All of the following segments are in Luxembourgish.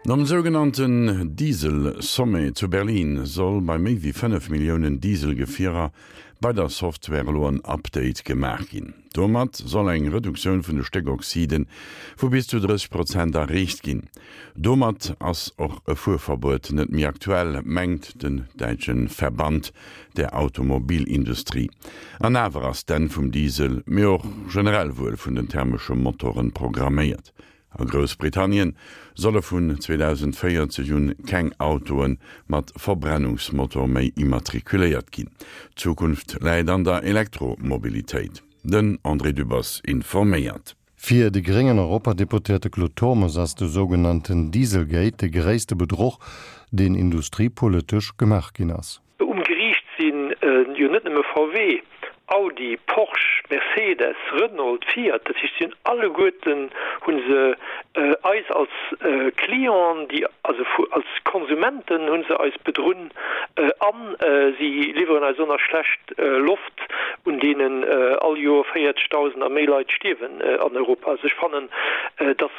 Nom sougenannten Diesel-Sommet zu Berlin soll bei méi wéi 5 Milliounen Diesel-Gefierer bei der Software elo en Update gemaach ginn. Domat soll eng Reduktioun vun de Stéckoxide vu bis zu 30 Prozent erreecht ginn. Domat ass och e Fuerverbuet net méi aktuell, mengt den däitsche Verband der Automobilindustrie. An awer ass d'Enn vum Diesel, mee och generell wuel vun den thermesche Motoren programméiert. A Groussbritannien solle vun 2040 un keng Autoe mat Verbrennungsmotor méi immatrikuléiert ginn. D'Zukunft läit an der Elektromobilitéit. Den André Dübbers informéiert. Fir de gréngen Europadeputéierte Claude Turmes ass de sougenannten Dieselgate de gréisste Bedruch, deen industriepolitesch gemaach ginn ass. Um Geriicht si jo net nëmme VW, Audi, Porsche, Mercedes, Renault, Fiat, dat heescht si hunn alleguerten hu se eis als Clienten, déi also als Konsumenten hu se eis bedrunn a si liwweren eis och nach schlecht Loft, un deenen all Joer 40.000 a méi Leit stierwen an Europa. Also ech fannen, datt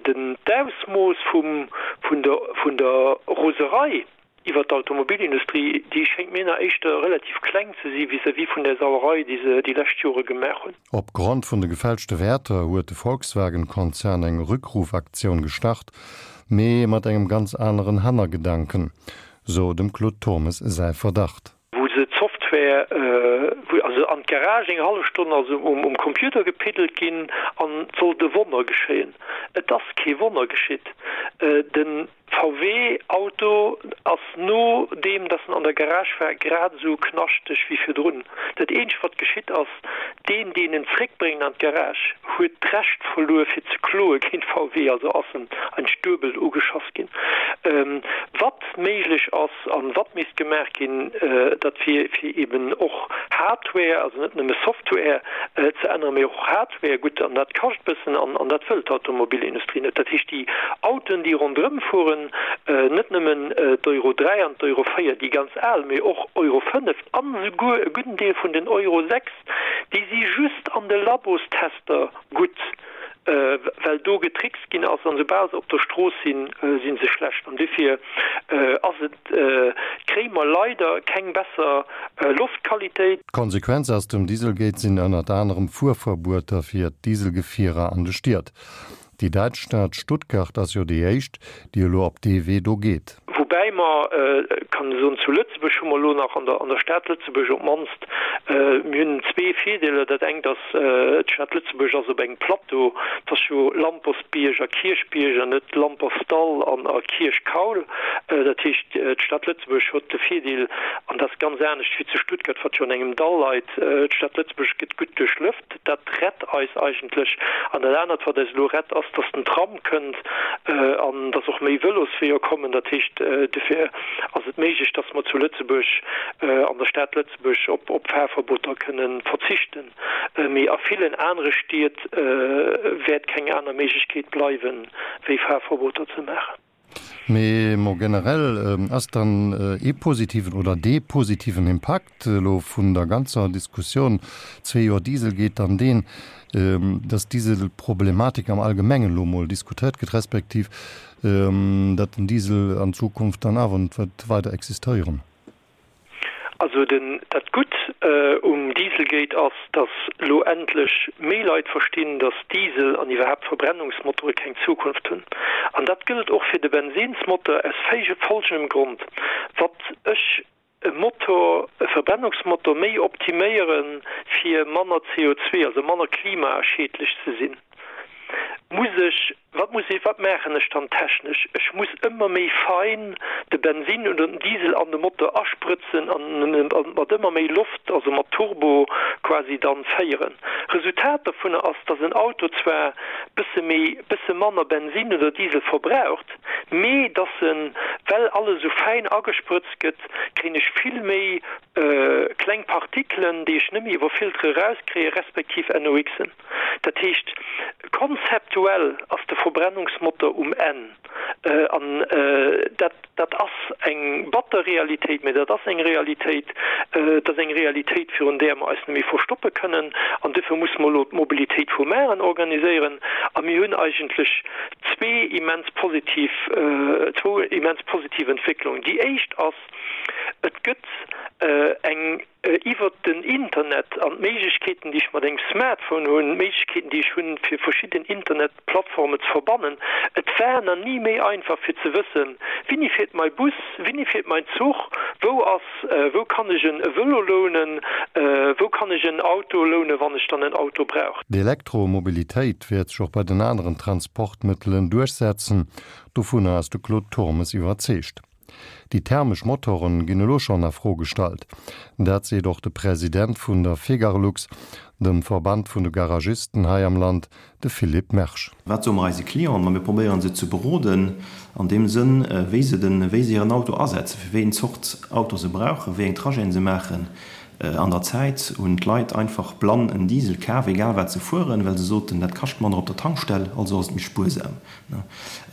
den d'Ausmooss vum vun der vun der Roserei, Iwwert d'Automobilindustrie, déi schéngt mir nach éischter relativ kleng ze si vis-à-vis vun där Sauerei, déi se déi lescht Jore gemaach hunn. Op Grond vun de gefälschte Wäerter huet de Volkswagen-Konzern eng Rückrufaktioun gestart, mee mat engem ganz aneren Hannergedanken, sou dem Claude Turmes säi Verdacht. Wou se d'Software, wou also an d'Garage eng hallef Stonn also um Computer gepiddelt ginn an et sollt e Wonner geschéien. Et ass kee Wonner geschitt. De VW Auto ass nodeem dass en an der Garage war grad esou knaschteg wéi virdrun. Dat eenzegt wat geschitt ass, deen deen en zréckbréngt an d'Garage huet d'Recht verluer fir ze kloe géint VW, also ass en eigentlech duebel ugeschass ginn. Wat méiglech ass an wat misst gemaach ginn, dat wier fir eben och Hardware, also net nëmme Software ze änneren, mee och Hardware. Wär gutt, an dat kascht bëssen an dat wëll d'Automobilindustrie net. Dat heescht, déi Autoen, déi ronderëm fueren, net nëmmen d'Euro 3 an d'Euro 4, déi ganz al, mee och Euro 5 an esouguer e gudden Deel vun den Euro 6, déi si just an de Labostester gutt, well do getrickst ginn ass, an esoubal se op der Strooss sinn, si se schlecht. An dofir ass et. Kréie mer leider keng besser Loftqualitéit. D'Konsequenz aus dem Dieselgate sinn ënnert anerem Fuerverbueter fir d'Dieselgefierer an de Stied. Déi däitsch Stad Stuttgart ass jo déi éischt, déi elo op dee Wee do geet. Woubäi mer, kann ech soen, zu Lëtzebuerg hu mer elo nach an der an der Stad Lëtzebuerg op d'mannst, mir hunn zwee Virdeeler. Dat engt ass, d'Stad Lëtzebuerg ass op engem Plateau, et ass jo Lampersbierg a Kierchbierg an net Lampertsdall an a Kierchkaul. Dat heescht, d'Stad Lëtzebuerg huet de Virdeel, an dat ass ganz anescht wéi zu Stuttgart, wat jo an engem Dall leit, d'Stad Lëtzebuerg gëtt gutt duerchlëft. Dat rett eis eigentlech. An dat anert, wat eis elo rett, ass, dass den Tram kënnt an dass och méi Vëlosweeër kommen. Dat heescht, dofir ass et méiglech, dass mer zu Lëtzebuerg, an der Stad Lëtzebuerg, op Fahrverboter kënne verzichten. Mee a villen anere Stied wäert keng aner Méiglechkeet bleiwen, wéi Fahrverboter ze maachen. Mee mo generell ass dann ee positiven oder dee positiven Impakt elo vun der ganzer Diskussioun zwee Joer Dieselgate dann deen, dass d'Dieselproblematik am Allgemengen elo mol diskutéiert gëtt, respektiv datt den Diesel an Zukunft dann awer net wäert weider existéieren? Also den, dat Gutt um Dieselgate ass, dass elo endlech méi Leit verstinn, dass Diesel an iwwerhaapt Verbrennungsmotore keng Zukunft hunn. An dat gëllt och fir de Bensinsmotor aus folgendem Grond, Watt ech e Motor, e Verbrennungsmotor méi optiméiere fir manner CO2, also manner klimaschiedlech ze sinn, muss ech Wat muss ech, wat maachen ech dann technesch? Ech muss ëmmer méi fein de Bensin oder den Diesel an de Motor asprëtzen an en mat ëmmer méi Loft, also mat Turbo quasi dann féieren. Resultat dovunner ass, dass en Auto zwar bësse méi, bësse manner Bensin oder Diesel verbraucht, mee dass en, well alles esou fäin agesprëtzt gëtt, kréien ech vill méi kleng Partikelen, déi ech net méi iwwer Filtere erauskréien, respektiv NOxen. Dat heescht, konzeptuell ass de Verbrennungsmotor um Enn. An dat, dat ass eng batter Realitéit, mä dat ass eng Realitéit. Et ass eng Realitéit, virun där mer eis net méi verstoppe kënnen. An duerfir musse mer elo d'Mobilitéit vu mar organiséieren. A mir hunn eigentlech zwee immens positiv, zwou immens positiv Entwécklungen. Déi éischt ass, et gëtt eng iwwert den Internet an d'Méiglechkeeten, déi ech mat engem Smartphone hunn, d'Méiglechkeeten, déi ech hunn, fir verschidden Internetplattformen ze verbannen. Et war nach ni méi einfach, fir ze wëssen, Wéini fiert mai Bus, wéini fiert mein Zuch, wou ass, wou kann ech en Vëlo lounen, wou kann ech en Auto lounen, wann ech dann en Auto brauch. D'Elektromobilitéit wäert sech och bei den aneren Transportmëttelen duerchsetzen, dovunner ass de Claude Turmes iwwerzeegt. Déi thermesch Motoren ginn elo schonn a Fro gestallt. Dat seet och de President vun der Fegarlux, dem Verband vun de Garagisten hei am Land, de Philippe Mersch. Wat soe mer eise Clienten? Ma mir probéieren se ze beroden an deem Sënn, wéi se den, wéi se hiren Auto asetzen, fir wéi eng Zort Auto se brauchen, wéi eng Trajeten se maachen. An der Zäit hunn d'Leit einfach blann en Diesel kaf, egal wat se fueren, well se soten, dat kascht manner op der Tankstell, also ass et méi spuersam.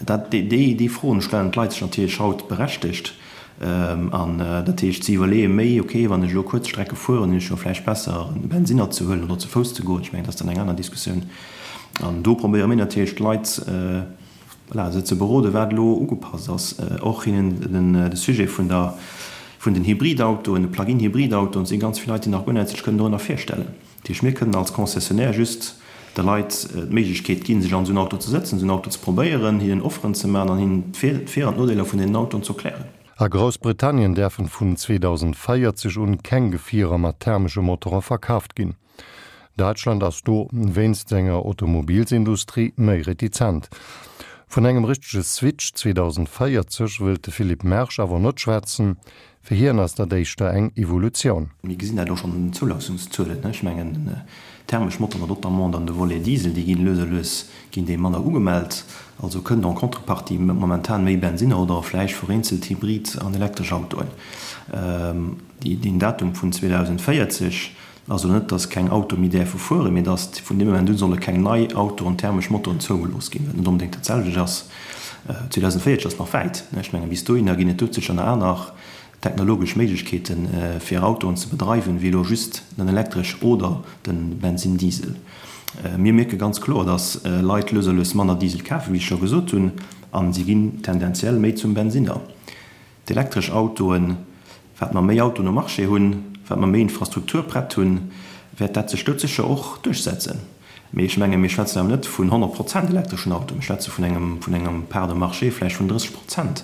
Dat, déi, déi Froen stellen d'Leit sech natierlech haut berechtegt. An dat heescht, si iwwerleeë méi, okay, wann ech elo kuerz Strecke fueren, hunn ech jo vläicht besser, e Bensinner ze huelen oder ze Fouss ze goen. Ech mengen, dat ass dann eng aner Diskussioun. An do probéiere mir natierlech d'Leit, voilà, se ze beroden, wat elo ugepasst ass. Och hinnen den, de Sujet vun der, vun den Hybridautoen, de Plug-in-Hybridautoen, et si ganz vill Leit, déi nach guer näischt sech kënnen dorënner virstellen. Dat heescht, mir kënnen als Concessionnaire just de Leit d'Méiglechkeet ginn, sech an esou en Auto ze sëtzen, esou en Auto ze probéieren, hinnen Offeren ze maachen an hinnen d'Vir an d'Nodeeler vun deenen Autoen ze erklären. A Groussbritannien däerfen vun 2040 un keng Gefierer mat thermesche Motore verkaaft ginn. Däitschland ass do wéinst senger Automobilsindustrie méi retizent. Vun engem richtege Switch 2040 wëllt de Philippe Mersch awer net schwätzen, Fir hien ass dat éischter eng Evolutioun. Mir gesinn dat och schonn un den Zoulaassungszuelen. Ech mengen, den thermesch Motor, notamment dann de Volet Diesel, déi ginn lues a lues ginn déi manner ugemellt. Also kënnt en contrepartie momentan méi Bensinner oder vläicht vereenzelt Hybrid an elektresch Autoen. Deen Datum vun 2040 ass elo net, dass keng Autoe méi däerfe fueren, mee dass vun deem Moment u solle keng nei Autoen, thermesch Motoren zougelooss ginn, wat net onbedéngt dat selwecht ass. 2040 ass nach wäit. Ech mengen, bis dohinner ginn et doudsécher nach aner technologesch Méiglechkeeten, fir Autoen ze bedreiwen, wéi elo just den elektresch oder de Bensin-Diesel. Mir mierke ganz kloer, dass Leit lues a lues manner Diesel kafen, wéi ech scho gesot hunn, a si ginn tendenziell méi zum Bensinner. D'elektresch Autoen, wat mer méi Autoen um Marché hunn, wat mer méi Infrastruktur prett hunn, wäert dat sech doudsécher och duerchsetzen. Mee ech mengen, mir schwätzen awer net vun 100 Prozent elektreschen Autoen, mir schwätze vun engem, vun engem Part de marché vläicht vun 30 Prozent.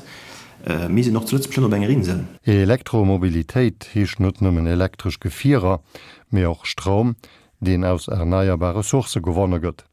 Mir sinn och zu Lëtzebuerg net op enger Insel. Elektromobilitéit heescht net nëmmen elektresch Gefierer, mee och Stroum, deen aus erneierbare Sourcë gewonne gëtt.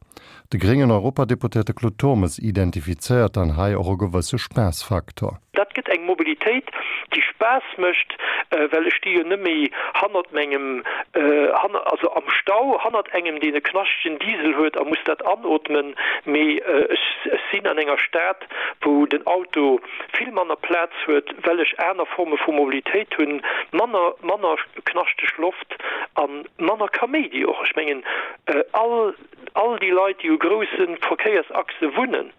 De gréngen Europadeputéierte Claude Turmes identifizéiert dann hei och e gewësse Spaassfaktor. Dat gëtt eng Mobilitéit, déi Spaass mécht, well ech sti jo net méi hannert mengem, also am Stau hannert engem, deen e knaschtegen Diesel huet a muss dat anootmen, mee ech sinn an enger Stad, wou den Auto vill manner Plaz huet, well ech aner Forme vu Mobilitéit hunn, manner, manner knaschteg Loft a manner Kaméidi och. Ech mengen, all, all déi Leit, déi u grousse Verkéiersachse wunnen,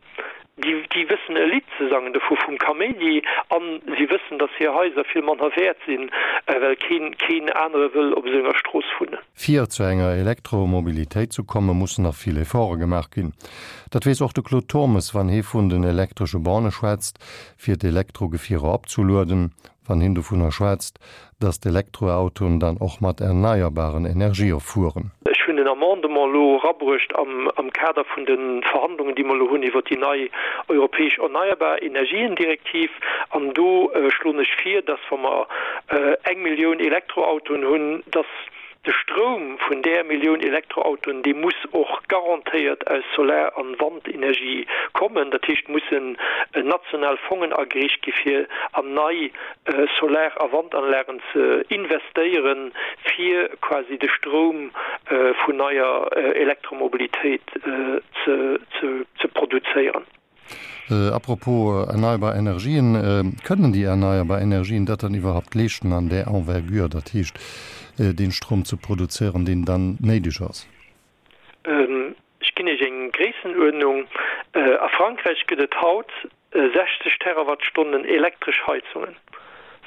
déi, déi wëssen e Lidd ze sangen dovu vum Kaméidi a si wëssen, datt hir Haiser vill manner wäert sinn, well keen, keen anere wëll op esou enger Strooss wunnen. Fir zu enger Elektromobilitéit zu kommen, mussen nach vill Efforte gemaach ginn. Dat weess och de Claude Turmes, wann hie vun den elektresche Borne schwätzt, fir d'Elektrogefierer opzelueden, wann hien dovunner schwätzt, datt d'Elektroautoen dann och mat erneierbaren Energië fueren. Ech hunn en Amendement elo erabruecht am Kader vun de Verhandlungen, déi mer elo hunn iwwert déi nei europäesch erneierbar Energiendirektiv. An do schloen ech vir, datt, wa mer eng Millioun Elektroautoen hunn, datt De Stroum vun där Millioun Elektroautoen, dee muss och garantéiert aus Solar an Wandenergie kommen. Dat heescht, mussen national Fongen ageriicht gi fir an nei Solar a Wandanlagen ze investéieren, fir quasi de Stroum vun neier Elektromobilitéit ze produzéieren. A propos erneierbar Energien, Kënnen déi erneierbar Energien dat dann iwwerhaupt leeschten an där Envergure, dat heescht dee Strom ze produzéieren, deen dann néideg ass? Ech ginn Iech eng Gréissenuerdnung, A Frankräich gëtt et haut 60 Terawattstonnen elektresch Heizungen.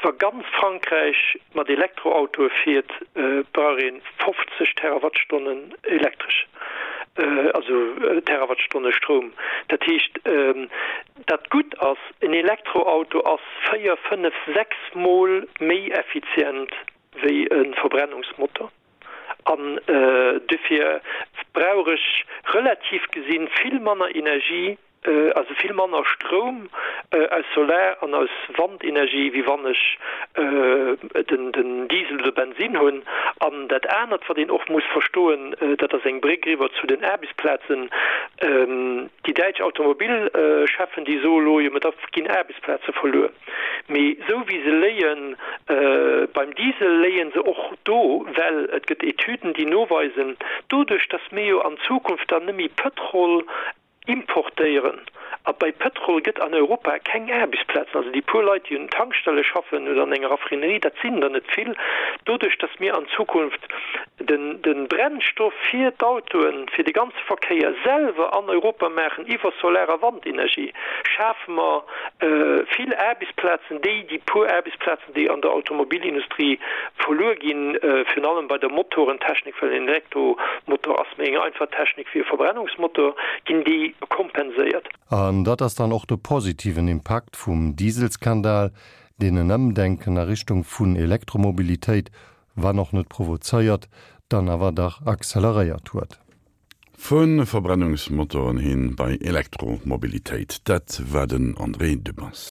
Wa ganz Frankräich mat Elektroautoe fiert, brauch ee 50 Terawattstonnen Elektresch. Also Terawattstonne Stroum. Dat heescht, dat Gutt ass, en Elektroauto ass 4, 5, 6 Mol méi effizient wéi e Verbrennungsmotor. An dofir brauch ech relativ gesinn vill manner Energie, also vill manner Stroum aus Solar an aus Wandenergie, wéi wann ech den Diesel oder Bensinn hunn. An dat anert, wat een och muss verstoen, dat ass eng Bréck eriwwer zu den Aarbechtsplazen, Déi däitsch Automobilcheffen, déi soe lo, jo, mä da ginn Aarbechtsplaze verluer. Mee esou wéi se léie beim Diesel, léie se och do, well et gëtt Etüden, déi noweisen, doduerch datt mir jo an Zukunft dann net méi Pëtrol importéieren, a bei Pëtrol gëtt an Europa keng Aarbechtsplazen, also déi puer Leit, déi un Tankstelle schaffen oder an enger Raffinerie, dat sinn der net vill, doduerch datt mir an Zukunft de Brennstoff fir d'Autoen, fir de ganze Verkéier selwer an Europa maachen iwwer Solar a Wandenergie, schafe mer vill Aarbechtsplazen, déi déi puer Aarbechtsplazen, déi an der Automobilindustrie verluer ginn, virun allem bei der Motorentechnik, well en Elektromotor ass méi eng einfach Technik wéi e Verbrennungsmotor, ginn déi kompenséiert. An dat ass dann och de positiven Impakt vum Dieselskandal, deen en Ëmdenken a Richtung vun Elektromobilitéit, wann och net provozéiert, dann awer dach acceleréiert huet. Vu Verbrennungsmotoren hin bei Elektromobilitéit, dat war den André Dübbers.